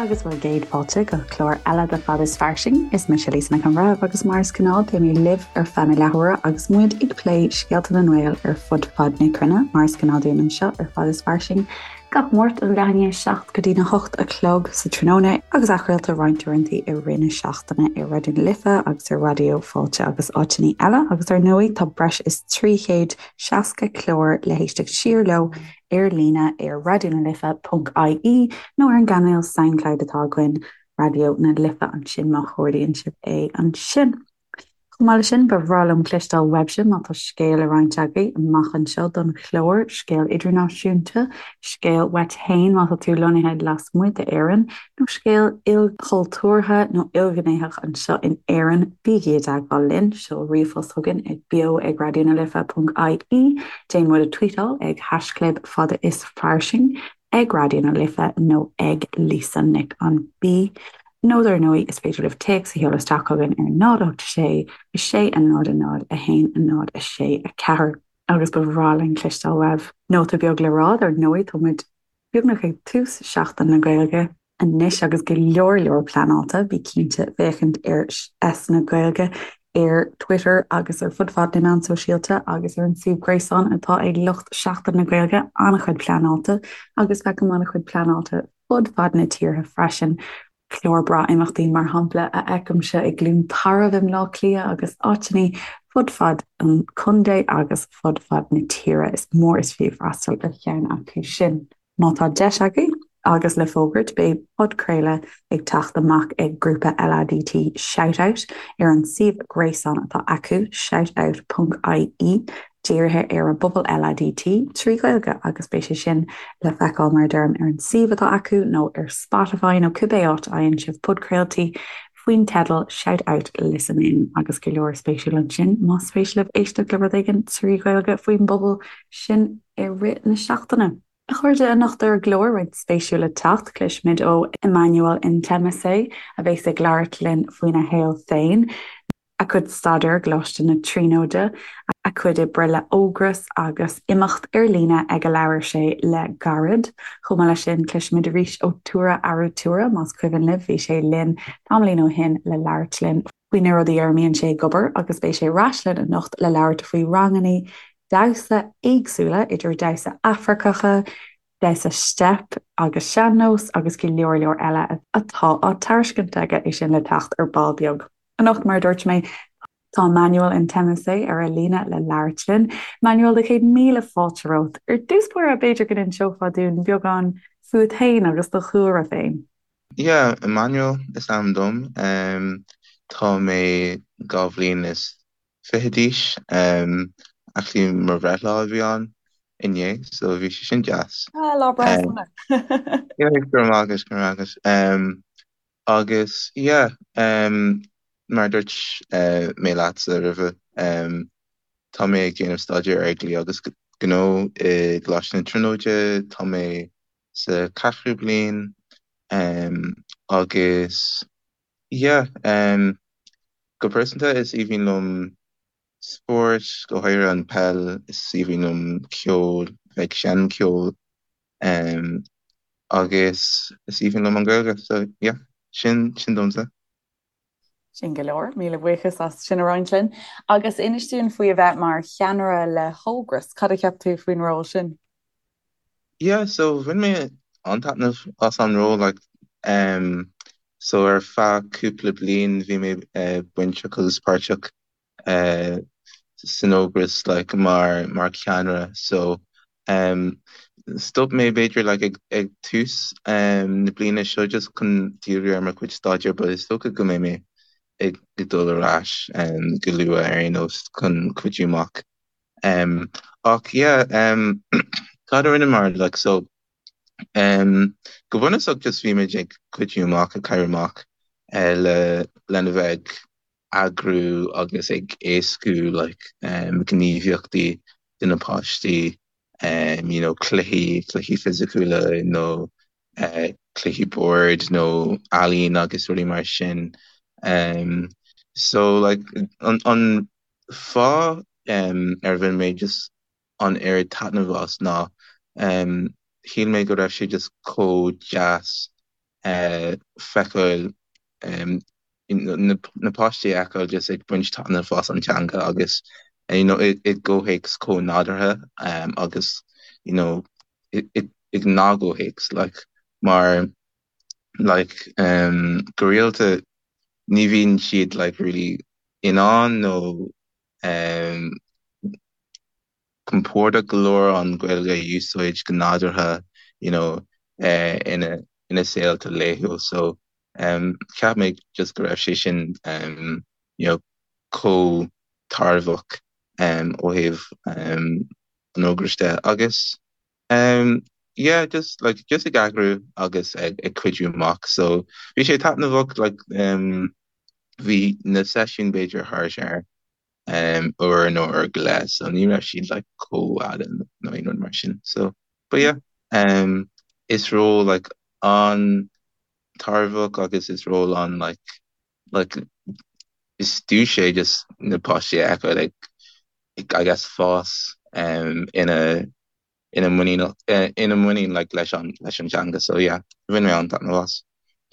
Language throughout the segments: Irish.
agus bhur gcéad fáilte go clár eile de Fad is Fairsing. Is mise Lisa Nic an Bhreithimh agus mar is gnáth beidh mé libh ar feadh na leathuaire agus muid ag plé scéalta na nGael ar fud fad na cruinne mar is gnáth dúinn anseo ar Fad is Fairsing gach Máirt ó leath i ndiaidh 7 go dtí na 8 a chlog sa tráthnóna agus athchraolta roinnt uaireanta i rith na seachtaine ar Raidió na Life agus ar Raidió Fáilte agus áiteanna eile agus ar ndóigh tá breis is 360 clár le héisteacht siar leo ar líne ar raidionalife.ie nó ar an gcainéal Soundcloud atá againn, Raidió na Life ansin má chuardaíonn sibh é ansin. Chomh maith leis sin, ba bhreá liom cloisteáil uaibhse má tá scéal le roinnt agaibh amach anseo don chlár, scéal idirnáisiúnta, scéal uait féin má tá tú lonnaithe lasmuigh d'Éirinn, nó scéal ilchultúrtha nó ilghnéitheach anseo in Éirinn, bígí i dteagmháil linn, seol ríomhphost chugainn ag beo ag raidionalife.ie, déan muid a tweetáil ag haischlib fada is fairsing ag Raidió na Life nó ag Lisa Nic an B. Nó dar ndóigh is féidir libh téacs a sheoladh isteach chugainn ar 0 8 6 6 0 0 1 0 6 4 agus ba bhreá linn cloisteáil uaibh. Nóta beag le rá, dar ndóigh tá muid beagnach ag tús Seachtain na Gaeilge anois agus go leor leor pleanáilte, bí cinnte féachaint ar S na Gaeilge ar Twitter agus ar fud fad na meán sóisialta agus ar an suíomh gréasáin atá ag lucht Seachtain na Gaeilge, an-chuid pleanáilte agus feicim an-chuid pleanáilte fud fad na tíortha freisin. Clár breá imeachtaí mar shampla a fheicimse i gCluain Tarbh i mBleá Cliath agus áiteanna fud fad an chontae agus fud fad na tíre. Is mór is fiú freastal ar cheann acu sin. Má tá deis agaibh, agus le fógairt, beidh podchraoladh ag teacht amach ag grúpa LADT Shout Out ar an suíomh gréasáin atá acu, shoutout.ie, dírithe ar an bpobal LADT trí Ghaeilge agus beidh sé sin le feiceáil mar a deirim ar an suíomh atá acu nó ar Spotify nó cibé áit a fhaigheann sibh podchraoltaí faoin teideal Shout Out Listen In agus go leor spéisiúil ansin más spéis libh éisteacht le rud éigin trí Ghaeilge faoin bpobal sin i rith na seachtaine. A chairde, anocht ar an gclár, roinnt spéisiúil le teacht, cloisfimid ó Emmanuel Ntlemase, a bheas ag labhairt linn faoina shaol féin, a chuid staidéir i gColáiste na Tríonóide, a chuid oibre le Ógras agus imeacht ar líne ag a labhair sé le gairid. Chomh maith leis sin, cloisfimid arís ó Tura Arutura, más cuimhin libh, bhí sé linn tamaillín ó shin le labhairt linn faoi na rudaí ar a mbíonn sé ag obair agus beidh sé ar ais linn anocht le labhairt faoi ranganna damhsa éagsúla, idir damhsa Afracacha, damhsa steip agus sean-nós agus go leor leor eile atá á tairiscint aige, é sin le teacht ar ball beag. Anocht, mar a dúirt mé, tá Emmanuel Ntlemase ar an líne le labhairt linn. Emmanuel, do chéad míle fáilte romhat. Ar dtús báire, b'fhéidir go n-inseofá dúinn beagán fút féin agus do chúlra féin. Yeah, Emmanuel is ainm dom. Tá mé 22 bhliain d'aois. Actually mo bhreithlá a bhí ann inné, so bhí sé sin deas. Ah, lá breithe sona. Yeah, go raibh maith agat, go raibh maith agat. Agus yeah, mar a dúirt mé leatsa roimhe, tá mé ag déanamh staidéir ar dhlí agus gnó i gColáiste na Tríonóide, tá mé sa ceathrú bliain agus yeah, go pearsanta is aoibhinn liom spórt, go háirithe an peil, is aoibhinn liom ceol, bheith ag seinm ceoil agus is aoibhinn liom an Ghaeilge so yeah, sin sin domsa. Sin go leor, míle buíochas as sin a roinnt linn. Agus inis dúinn faoi a bheith mar cheannaire le hÓgras, cad a cheap tú faoin ról sin? Yeah, so bhain mé an-taitneamh as an ról like um, so ar feadh cúpla bliain bhí mé uh, bainteach agus páirteach uh, san Ógras like mar mar cheannaire so um, stop mé b'fhéidir like ag, ag tús um, na bliana seo just chun díriú ar mo chuid staidéir but is dócha go mbeidh mé ag, ag dul ar ais um, go luath ar aon nós chun cuidiú amach. Um, ach yeah, um, cad a rinneamar like so um, go bunúsach just bhí muid ag cuidiú amach ag cabhrú amach uh, le lena bheith ag eagrú agus ag éascú like um, gníomhaíochtaí do na páistí um, you know, cluichí, cluichí fisiciúla nó uh, cluichí boird nó ealaín agus rudaí mar sin. Um, so like an, an fáth um, ar bhain mé just an oiread taitneamh as ná um, shíl mé go raibh sé just chomh deas. feiceáil na páistí a fheiceáil just ag baint taitneamh as an teanga agus you know i gcomhthéacs chomh nádúrtha agus you know i ngnáthchomhthéacs like mar like go rialta ní bhíonn siad like really in ann nó compordach go leor an Ghaeilge a úsáid go nádúrtha you know ina ina saolta laethúil so cheap mé just go raibh sé sin you know chomh tairbheach ó thaobh an ógrais de agus yeah just like just ag eagrú agus ag ag cuidiú amach so bhí sé taitneamhach like bhí na seisiúin b'fhéidir thart ar uair nó uair go leith so ní raibh siad like chomh fhada nó aon rud mar sin so but yeah is ról like an-tairbheach agus is ról an like like is duais é just na páistí a fheiceáil ag I guess fás ina ina muinín ina muinín like leis an leis an teanga so yeah bhain mé an-taitneamh as.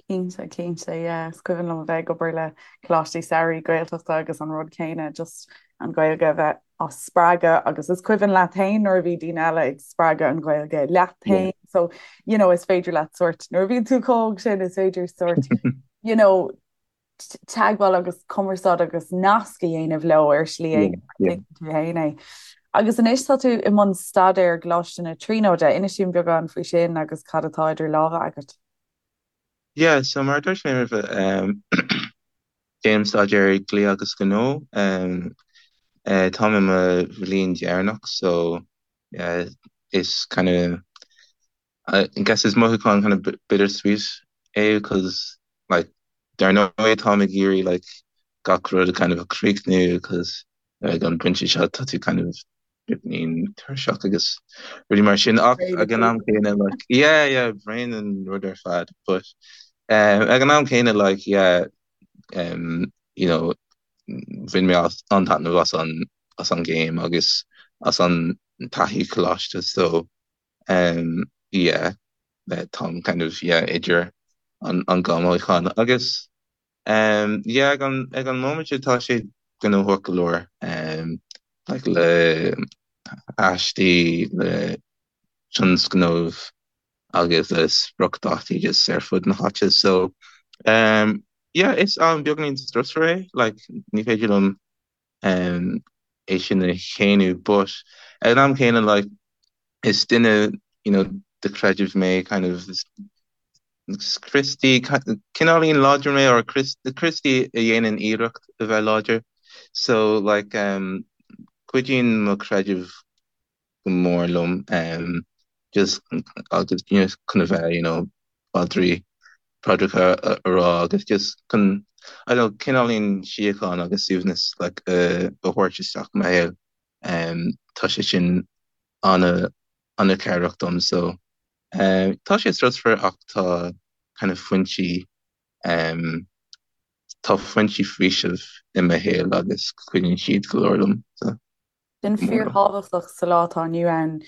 Cinnte, cinnte, yeah. Is cuimhin liom a bheith ag obair le coláistí samhraidh Gaeltachta agus an rud céanna, just an Ghaeilge a bheith á spreagadh agus is cuimhin leat féin nuair a bhí daoine eile ag spreagadh an Ghaeilge leat féin. So, you know, is féidir leat sort, nuair a bhíonn tú chomh hóg sin, is féidir sort, you know, teagmháil agus cumarsáid agus nasc a dhéanamh leo ar shlí éigin tuigeann tú féin é. Agus anois tá tú i mbun staidéir i gColáiste na Tríonóide, inis dúinn beagán faoi sin agus cad atá idir lámha agat. Yeah, so mar a dúirt mé roimhe, déanaim staidéar dlí agus gnó. Táim i mo bhliain dheireanach so yeah, is kind of I guess is mothúchán kind of bittersweet é because like dar ndóigh táim ag iarraidh like gach rud a kind of a chríochnú because ag an bpointe seo tá tú kind of beagáinín tuirseach agus rudaí mar sin ach ag an am céanna like yeah yeah braon an rud ar fad but ag an am céanna like yeah you know bhain mé an-taitneamh as an as an gcéim agus as an taithí coláiste so yeah táim kind of yeah idir an an dhá mhothúchán agus yeah ag an ag an móimint seo tá sé gnóthach go leor like le haistí le tionscnaimh agus le spriocdhátaí just ar fud na háite so yeah is am beagáinín strusmhar é like ní féidir liom é sin a shéanadh but ag an am céanna like is duine you know de chreideamh mé kind of is Críostaí cineáilín láidir mé or Críostaí a dhéanann iarracht a bheith láidir so like cuidíonn mo chreideamh go mór liom just agus you know chun a bheith you know paidrí paidreacha a rá agus just chun I don't know cineáilín síocháin agus suaimhneas like a thabhairt isteach i mo shaol tá sé sin ana ana chabhrach dom so tá sé strusmhar ach tá kind of foinsí tá foinsí faoisimh i mo shaol agus cuidíonn siad go leor liom so. Sin fíorthábhachtach sa lá atá inniu ann,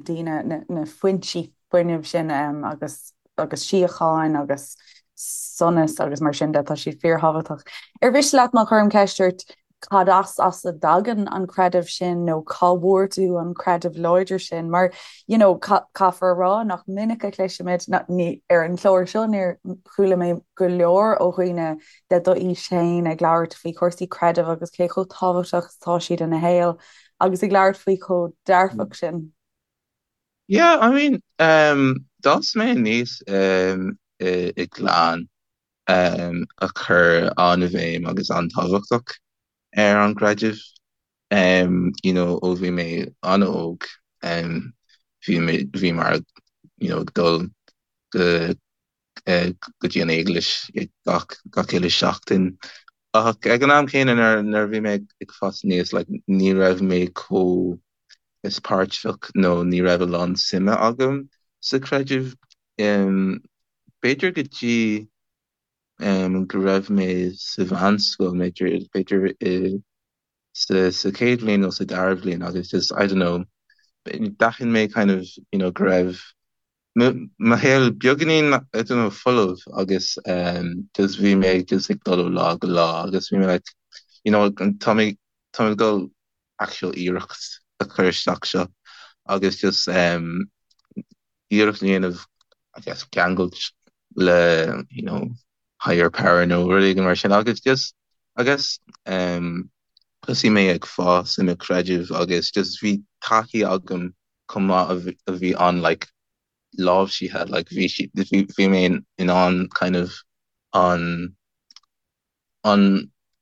daoine na foinsí fuinnimh sin agus agus síocháin agus sonas agus mar sin de, tá siad fíorthábhachtach. Ar mhiste leat má chuirim ceist ort cad as as a dtagann an creideamh sin nó cá bhfuair tú an creideamh láidir sin? Mar you know caithfear a rá nach minic a chloisimid, ní ar an chlár seo níor chuala mé go leor ó dhaoine de d'aois féin ag labhairt faoi chúrsaí creidimh agus cé chomh tábhachtach is atá siad ina shaol agus ag labhairt faoi chomh dearfach sin. Yeah, I mean, um, d'fhás mé aníos um, i, i gclann um, a chuir an-bhéim agus an-tábhachtach ar an gcreideamh. Um, you know, ó bhí mé an-óg, um, bhí mé, bhí mar, you know, ag dul go go dtí an eaglais gach gach uile seachtain. Ach ag an am céanna nuair nuair a bhí mé ag fás aníos like ní raibh mé chomh is páirteach nó ní raibh a lán suime agam sa chreideamh. B'fhéidir go dtí go raibh mé sa mheánscoil, b'fhéidir b'fhéidir i sa sa chéad bhliain nó sa dara bhliain agus just I don't know d'aithin mé kind of you know go raibh. Mo shaol beagáinín, I don't know, folamh agus just bhí mé just ag dul ó lá go lá agus bhí mé like, you know, tá mé tá mé ag dul actual iarracht a chur isteach seo agus just iarracht a dhéanamh I guess ceangailt le, you know, higher power nó rud éigin mar sin agus just I guess thosaigh mé ag fás i mo chreideamh agus just bhí taithí agam chomh maith a bhí an like láimhsithe like bhí sí bhí mé in ann kind of an an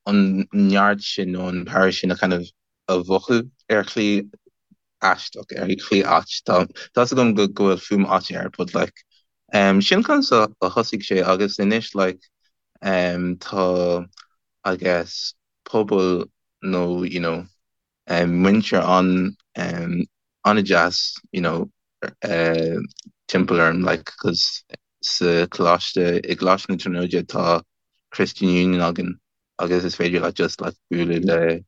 an neart sin nó an power sin a kind of a mhothú ar shlí aisteach ar shlí ait tá tá's agam go go bhfuil fuaim ait air but like um sin conas a thosaigh sé agus anois like um tá I guess pobal nó you know muintir an an-deas you know timpeall orm like cos sa choláiste i gColáiste na Tríonóide tá Christian Union againn agus is féidir leat just like bualadh le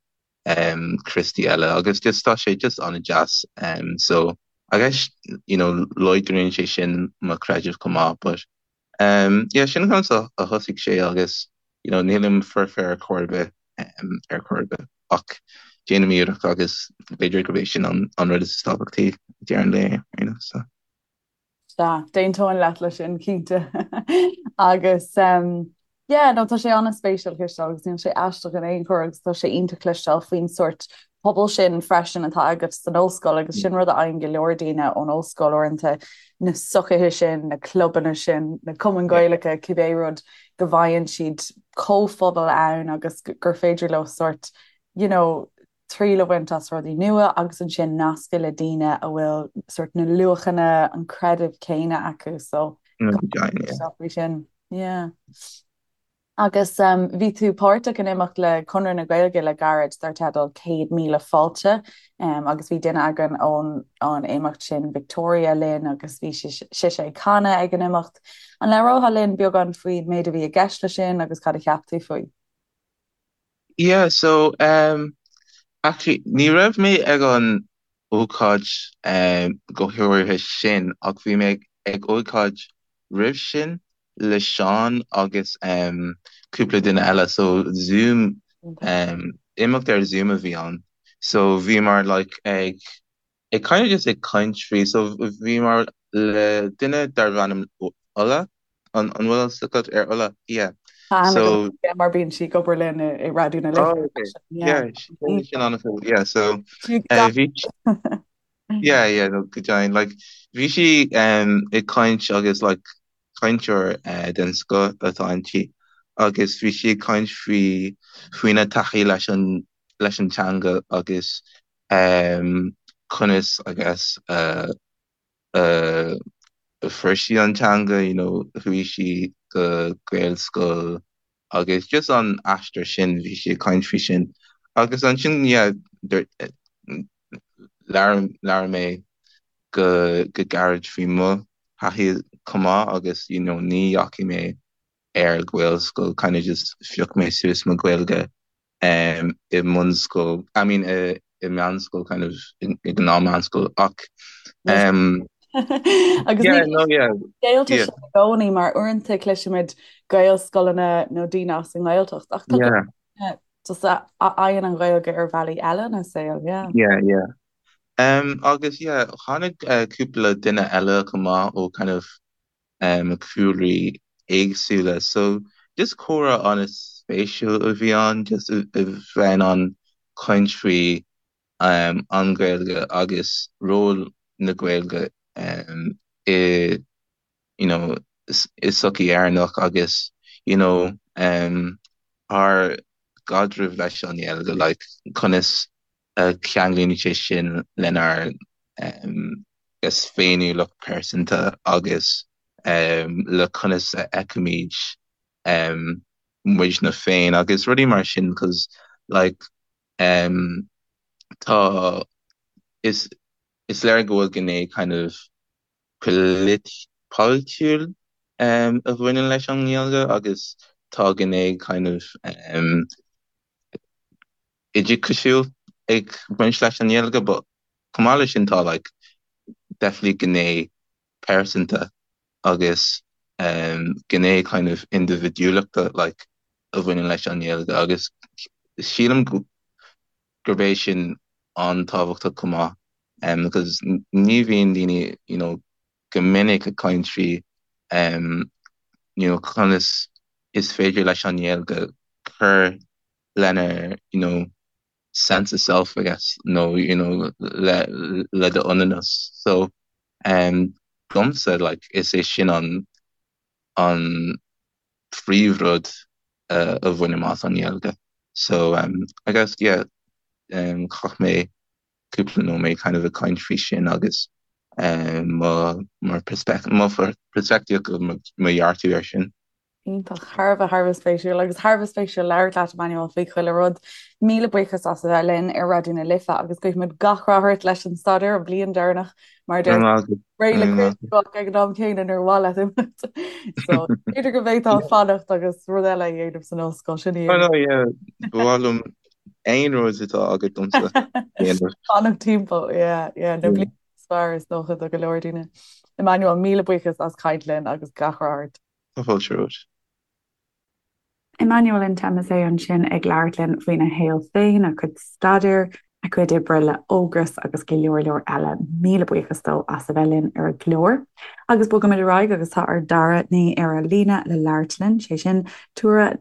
um Críostaí eile agus just tá sé just an-deas um so I guess you know láidríonn sé sin mo chreideamh chomh maith but Um, yeah, sin conas a thosaigh sé agus, you know, nílim foirfe ar chor ar bith, um, ar chor ar bith, ach déanaim iarracht agus b'fhéidir gurb é sin an, an rud is tábhachtaí ag deireadh an lae, you know, so. Sea, d'aontóinn leat leis sin, cinnte. Agus, um, yeah, no, tá sé an-spéisiúil cloisteáil agus níl sé aisteach in aon chor agus tá sé iontach cloisteáil faoin sórt pobal sin freisin atá agat san ollscoil agus sin rud a fhaigheann go leor daoine ón ollscoil uaireanta, na sochaithe sin, na clubanna sin, na cumainn Ghaelacha, cibé rud, go bhfaigheann siad comhphobal ann agus gur féidir leo sórt, you know, triail a bhaint as rudaí nua agus ansin nascadh le daoine a bhfuil sórt na luachanna, an creideamh céanna acu so faoi sin. Yeah. Agus bhí tú páirteach in imeacht le Conradh na Gaeilge le gairid dar teideal 100,000 Fáilte agus bhí duine againn ón an imeacht sin, Victoria, linn agus bhí sise ag canadh ag an imeacht. An labhrófá linn beagán faoin méid a bhí i gceist leis sin agus cad a cheap tú faoi? Yeah, so um, actually ní raibh mé ag an ócáid um, go háirithe sin ach bhí mé ag ócáid roimh sin le Seán agus um, cúpla duine eile so Zoom um, imeacht ar Zoom a bhí ann so bhíomar like ag ag kind of just ag caint faoi so bhíomar le duine darbh ainm Ola an an bhfuil fhios agat ar Ola yeah so mar bíonn sí ag obair linn i Raidió na Life oh, okay. yeah yeah sin an yeah so uh, bhí yeah yeah no, go deimhin like bhí sí um, ag caint agus like cainteoir uh, den scoth atá inti agus bhí sí ag caint faoi faoina taithí leis an leis an teanga agus um, conas I guess uh, uh, fuair sí an teanga, you know, chuaigh sí go Gaelscoil agus just an aistear sin, bhí sí ag caint faoi sin. Agus ansin, yeah, labhair, labhair mé go, go gairid faoi mo thaithí chomh maith agus, you know, ní dheachaigh mé ar Ghaelscoil, kind of just phioc mé suas mo Ghaeilge um, i mbunscoil, I mean i, i meánscoil, kind of, i gnáth-mheánscoil, ach um, Agus yeah, no, yeah, Gaeltacht yeah. i gcónaí mar uaireanta cloisimid Gaelscoileanna nó daoine as an nGaeltacht ach tá yeah. just a fhaigheann an Ghaeilge ar bhealaí eile ina saol, yeah. Yeah, yeah. Um, agus yeah, tháinig uh, cúpla duine eile chomh maith ó kind of cúlraí éagsúla. So just comhrá an-spéisiúil a bhí ann, just a bheith in ann caint faoi an Ghaeilge agus ról na Gaeilge i you know i sochaí Éireannach agus you know ár gcaidreamh leis an nGaeilge, like conas a cheanglaíonn sé sin lenár féiniúlacht pearsanta agus le conas a fheicimid muidne féin agus rudaí mar sin cos like tá is is léir go bhfuil gné kind of polaitiúil a bhaineann leis an nGaeilge agus tá gné kind of oideachasúil ag baint leis an nGaeilge but chomh maith leis sin tá like definitely gné. pearsanta agus gné kind of indibhidiúlachta like a bhaineann leis an nGaeilge agus sílim gurb é sin an-tábhachtach chomh maith because ní bhíonn daoine you know go minic ag caint faoi you know conas is féidir leis an nGaeilge cur lenár you know sense of self I guess nó you know le le d'ionannas so um domsa like is é sin an an phríomhrud uh, a bhainim as an nGaeilge so um I guess yeah um chaith mé cúpla nóiméad kind of ag caint faoi sin agus um mo mo mo peirspictíocht mo dhearcadh air sin. Iontach, thar a bheith, thar a bheith spéisiúil agus thar a bheith spéisiúil labhairt leat Emmanuel faoi chuile rud. Míle buíochas as a bheith linn ar Raidió na Life agus guímid gach rath ort leis an staidéar an bhliain deireanach mar deir réidh le críochnú ag an am céanna níor mhaith leat imeacht. So b'fhéidir go mbeidh tú ag fanacht agus rud eile a dhéanamh san ollscoil sin í. Oh no, yeah, ba mhaith liom aon rud atá agat domsa. Fanacht timpeall, yeah, yeah, na blianta is fearr is dócha do go leor daoine. Emmanuel, míle buíochas as caint linn agus gach rath ort. Tá fáilte romhat. Emmanuel Nteme ansin ag labhairt linn faoina shaol féin, a chuid staidéir, a chuid oibre le Ógras agus go leor leor eile. Míle buíochas dó as a bheith linn ar an gclár. Agus bogaimid ar aghaidh agus tá ár dara duine ar an líne le labhairt linn, sé sin Tura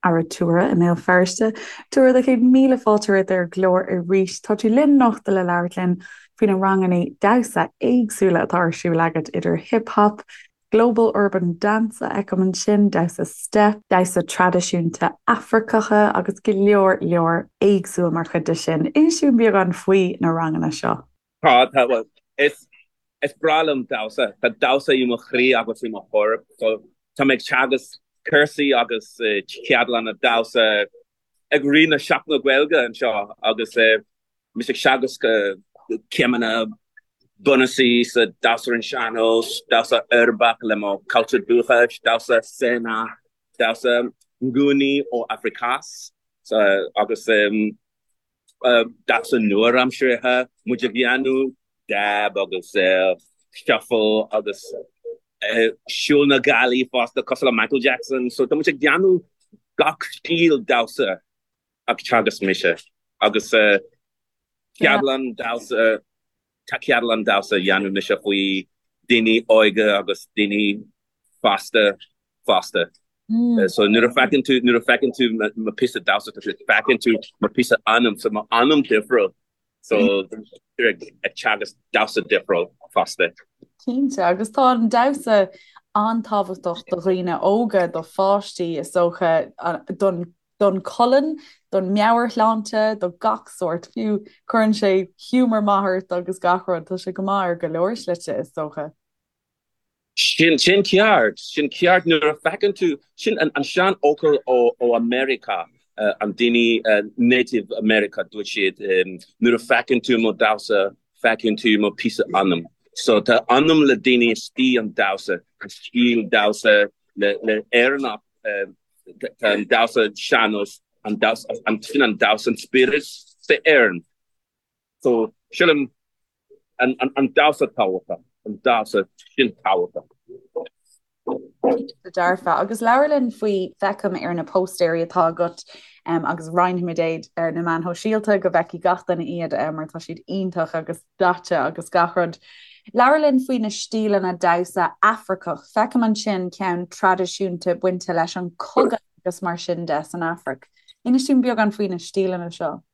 Aratura i mBéal Feirste. Tura, do chéad míle fáilte romhat ar an gclár arís. Tá tú linn anocht le labhairt linn faoi na ranganna damhsa éagsúla atá ar siúl agat idir hip hop, Global Urban Dance a fheicim ansin, damhsa step, damhsa traidisiúnta Afracacha agus go leor leor éagsúil mar chuid de sin. Inis dúinn beagán faoi na ranganna seo. Tá, tá, bhuel, is, is breá liom damhsa. Tá damhsa i mo chroí agus i mo chorp. So, tá mé ag teagasc cúrsaí agus ceardlanna damhsa ag rith na Seachtaine Gaeilge anseo agus mise ag teagasc céimeanna bunúsaí sa damhsa ar an sean-nós, damhsa uirbeach le mo cultúr dúchais, damhsa Sena, damhsa Nguni ó Afrikaans agus damhsa nua-aimseartha, muid ag dhéanamh dab agus shuffle agus siúl na gealaí fosta cosúil le Michael Jackson. So tá muid ag déanamh gach stíl damhsa ag teagasc mise agus ceardlann damhsa Tá ceardlann damhsa a dhéanamh mise faoi daoine óga agus daoine fásta fosta. So nuair a feiceann tú nuair a feiceann tú mo píosa damhsa tá sé feiceann tú mo píosa anam so mo anam difriúil so ag teagasc damhsa difriúil fosta. Cinnte, agus tá an damhsa an-tábhachtach do dhaoine óga, do pháistí is dócha, don don cholainn, don meabhairshláinte, do gach sórt, fiú cuireann sé giúmar maith ort agus gach rud, tá sé go maith ar go leor slite is dócha. Sin, sin ceart, sin ceart nuair a feiceann tú, sin an, an seanfhocal ó, ó America, an daoine Native America, dúirt siad, nuair a feiceann tú mo damhsa, feiceann tú mo píosa anam. So tá anam le daoine istigh an damhsa, an stíl damhsa le, le Éireannach, Tá an damhsa sean-nós, an damhsa, sin an damhsa, an spiorad sa Éireann. So, sílim an, an, an damhsa tábhachtach, an damhsa sin tábhachtach. Cinnte dearfa. Agus labhair linn faoi, feicim ar na póstaeirí atá agat um, agus roinnfimid iad ar na meáin shóisialta go bhfeicfidh gach duine iad um, mar tá siad iontach agus daite agus gach rud. Labhair linn faoi na stíleanna damhsa Afracach. Feicim ansin ceann traidisiúnta bainte leis an cogadh agus mar sin de san Afraic. Inis dúinn beagán faoi na stíleanna seo.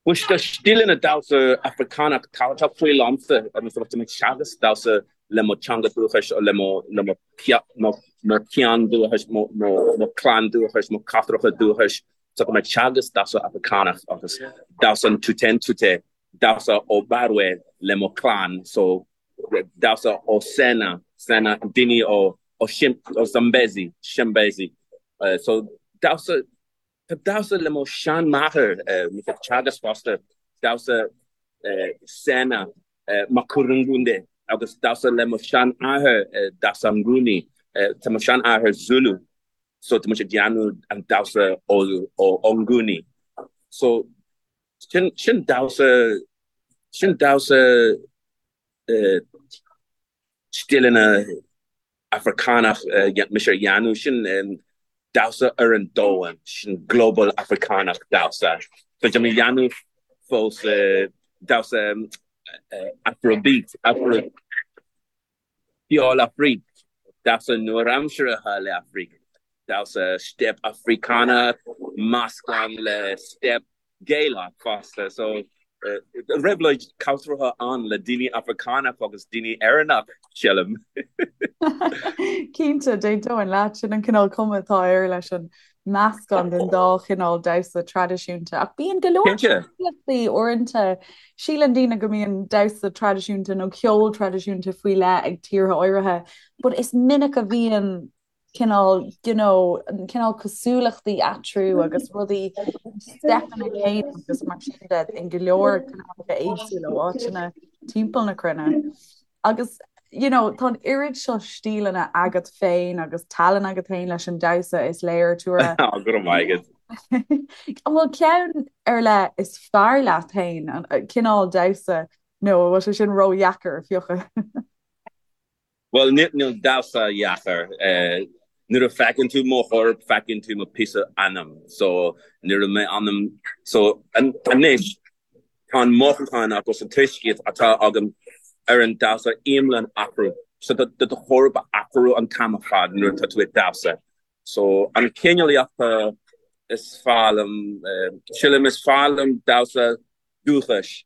Bhuel, tá stíleanna damhsa Afracánach tábhachtach faoi liomsa agus tá mé ag teagasc damhsa le mo teanga dúchais le mo le mo mo mo cheann dúchais, mo mo mo chlann dúchais, mo cathracha dúchais. So tá mé ag teagasc damhsa Afracánach agus damhsa an Tute damhsa ó Barwe le mo chlann, so damhsa ó Sena, Sena, daoine ó ó ó Zambezi, Zambezi. So damhsa, tá damhsa le mo seanmháthair, mise ag teagasc fosta, damhsa Sena, Makurungunde, agus damhsa le mo seanathair, damhsa Nguni, tá mo seanathair Zulu, so tá muid ag déanamh an damhsa ó ó Nguni. So Sin, sin damhsa, sin damhsa. stíleanna Africánach mise a dhéanamh, sin damhsa ar an domhan, sin global Africánach damhsa. So tá mé a dhéanamh fós damhsa Afrobeat, Afro ceol Afraic, damhsa nua-aimseartha le Afraic, damhsa step Africánach meascán le step Gaelach fosta. So réabhlóid cultúrtha ann le daoine Africánach agus daoine Éireannach, sílim. Cinnte, d'aontóinn leat, sin an cineál cuma atá air leis an meascán den dá chineál damhsa traidisiúnta. Ach bíonn go leor cosúlachtaí uaireanta. Síleann daoine go mbíonn damhsa traidisiúnta nó ceol traidisiúnta faoi leith ag tíortha áirithe, but is minic a bhíonn cineál, you know, an cineál cosúlachtaí eatarthu agus rudaí, steipeanna céanna agus mar sin de in go leor cineálacha éagsúla ó áiteanna timpeall na cruinne. Agus, you know, tá an oiread seo stíleanna agat féin agus tallann agat féin leis an damhsa is léir Tura. Go raibh maith agat. An bhfuil ceann ar leith is fearr leat féin, an cineál damhsa, nó an bhfuil sé sin ródheacair a phiocadh? Bhuel, níl damhsa deacair. Nuair a feiceann tú mo chorp, feiceann tú mo píosa anam. So, nuair a mé anam, so anois, tá an mothúchán agus an tuiscint atá agam ar an damhsa iomlán athrú. So tá do chorp a athrú an t-am ar fad nuair atá tú ag damhsa. So an cineálaíochta is fearr liom, sílim is fearr liom damhsa dúchais.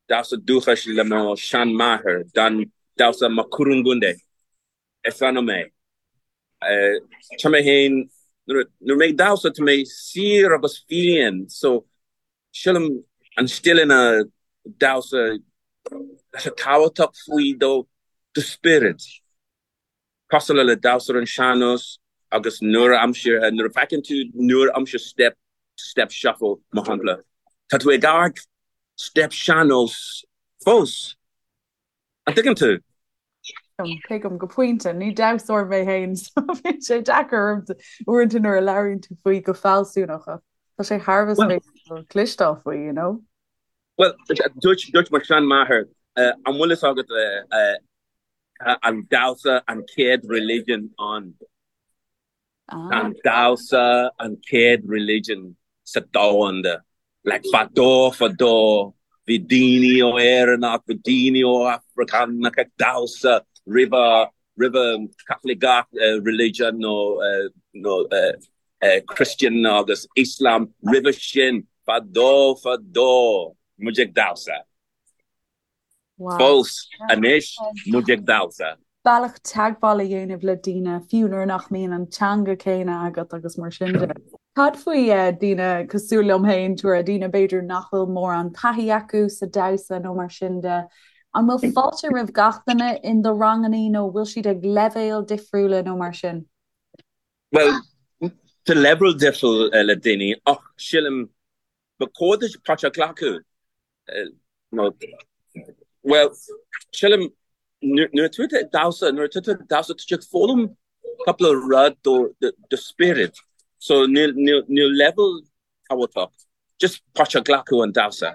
Damhsa dúchais le mo sheanmháthair, dan damhsa Makurungunde is ainm é. Tá mé féin, nuair mé ag damhsa tá mé saor agus fiáin, so sílim an stíleanna damhsa tá sé tábhachtach faoi do do spiorad. Cosúil le damhsa ar an sean-nós agus nua-aimseartha, nuair a feiceann tú nua-aimseartha step, step shuffle mar shampla, tá tú ag amharc step sean-nós fós. An dtuigeann tú? Tuigim go pointe. Ní damhsóir mé féin so bíonn sé deacair orm uaireanta nuair a labhraíonn tú faoi go fealsúnach ach tá sé thar a bheith spéisiúil cloisteáil faoi, you know? Bhuel, dúirt mo sheanmháthair, an bhfuil fhios agat an damhsa an chéad religion ann. An damhsa an chéad religion sa domhanda. Like fadó fadó bhí daoine ó Éireannach, bhí daoine ó Afracánach ag damhsa roimhe roimhe Caitliceach religion nó nó Christian agus Islam roimhe sin fadó fadó muid ag damhsa. Fós anois muid ag damhsa. Bealach teagmháil a dhéanamh le daoine, fiú nuair nach mbíonn an teanga céanna agat agus mar sin de. Cad faoi daoine cosúil liom féin, Tura, daoine b'fhéidir nach bhfuil mórán taithí acu sa damhsa nó mar sin de. An bhfuil fáilte roimh gach duine in do rangannaí nó bhfuil siad ag leibhéil difriúla nó mar sin? Bhuel, tá leibhéal difriúil le daoine ach sílim ba chóir duit páirt a ghlacadh. Nó, bhuel, sílim, nuair atá tú ag damhsa, nuair atá tú ag damhsa, tá tú ag foghlaim cúpla rud do do spiorad. So níl níl leibhéal tábhachtach, just páirt a ghlacadh an damhsa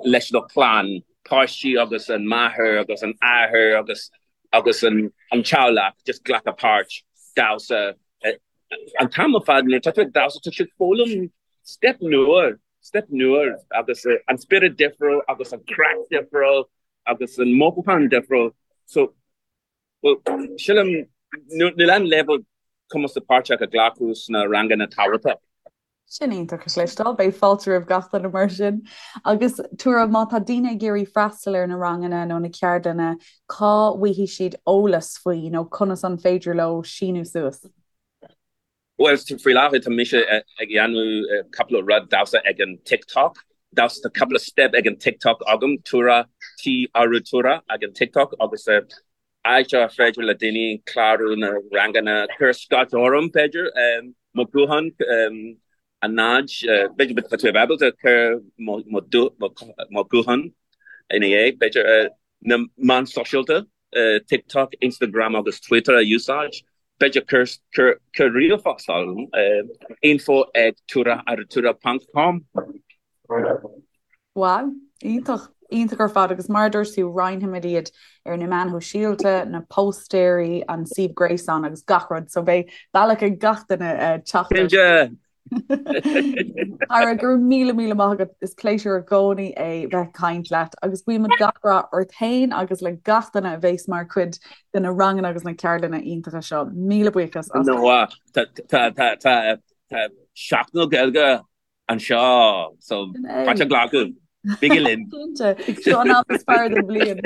leis do chlann, páistí agus an máthair agus an athair agus agus an an teaghlach, just glacadh páirt, damhsa. An t-am ar fad nuair atá tú ag damhsa, tá tú ag foghlaim step nua. Step nua agus an spiorad difriúil agus an craic difriúil agus an mothúchán difriúil. So, well, sílim, níl aon leibhéal cumas páirt a ghlacadh sna ranganna tábhachtach. Sin iontach a chloisteáil, beidh fáilte roimh gach duine mar sin. Agus Tura, má tá daoine ag iarraidh freastal ar na ranganna nó na ceardlanna, cá bhfaighidh siad eolas faoi nó conas an féidir leo síniú suas? Bhuel, faoi láthair tá mise ag dhéanamh cúpla rud damhsa ag an TikTok. Damhsa, tá cúpla step ag an TikTok agam, Tura, T Arutura ag an TikTok agus áit ar féidir le daoine clárú na ranganna, cuir scairt orm b'fhéidir, mo ghuthán, a 0, b'fhéidir tá tú ábalta cur mo ghuthán ina dhiaidh, b'fhéidir, na meáin sóisialta. TikTok, Instagram agus Twitter a úsáid. B'fhéidir cuir ríomhphost orm, info ag turaarutura ponc com. Wow, iontach. Iontach ar fad agus mar a dúirt tú roinnfimid iad ar na meáin shóisialta, na póstaeirí, an suíomh gréasáin agus gach rud so beidh bealach ag gach duine teacht ort. Cinnte! Ara, go raibh míle míle maith agat, is pléisiúr i gcónaí é bheith ag caint leat agus guímid gach rath ort féin agus le gach duine a bheas mar chuid de na ranganna agus na ceardlanna iontacha seo. Míle buíochas as. No, tá tá tá Seachtain na Gaeilge anseo so páirt a ghlacadh. Bígí linn. Cinnte, seo an am is fearr den bhliain.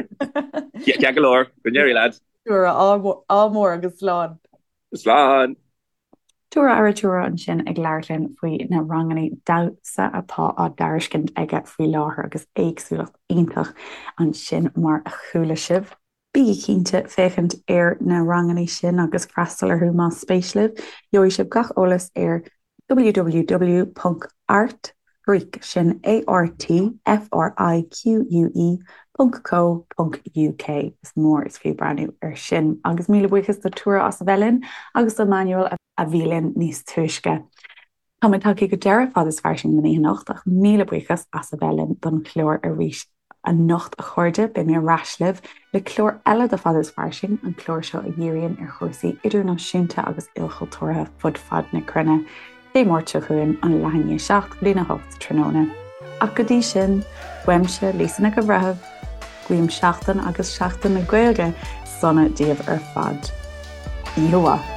Ceart go leor, go n-éirí leat. Ádh mór agus slán. Slán. Tura Arutura ansin ag labhairt linn faoi na ranganna damhsa atá á dtairiscint aige faoi láthair agus éagsúlacht iontach ansin mar a chuala sibh. Bígí cinnte féachaint ar na ranganna sin agus freastal orthu más spéis libh. Gheobhaidh sibh gach eolas ar www.artfrique, sin A-R-T-F-R-I-Q-U-E, ponc co ponc uk. Is mór is fiú breathnú ar sin. Agus míle buíochas do Tura as a bheith linn agus do Manuel a bhí linn níos túisce. Tá muid tagtha go deireadh Fad is Fairsing don oíche anocht ach míle buíochas as a bheith linn don chlár arís anocht a chairde. Beidh mé ar ais libh le clár eile de Fad is Fairsing, an clár seo a dhíríonn ar chúrsaí idirnáisiúnta agus ilchultúrtha fud fad na cruinne, Dé Máirt seo chugainn, an leath i ndiaidh 7 go dtína 8 tráthnóna. Ach go dtí sin, uaimse, Lisa Nic an Bhreithimh, guím seachtain agus Seachtain na Gaeilge sona daoibh ar fad. Oíche mhaith.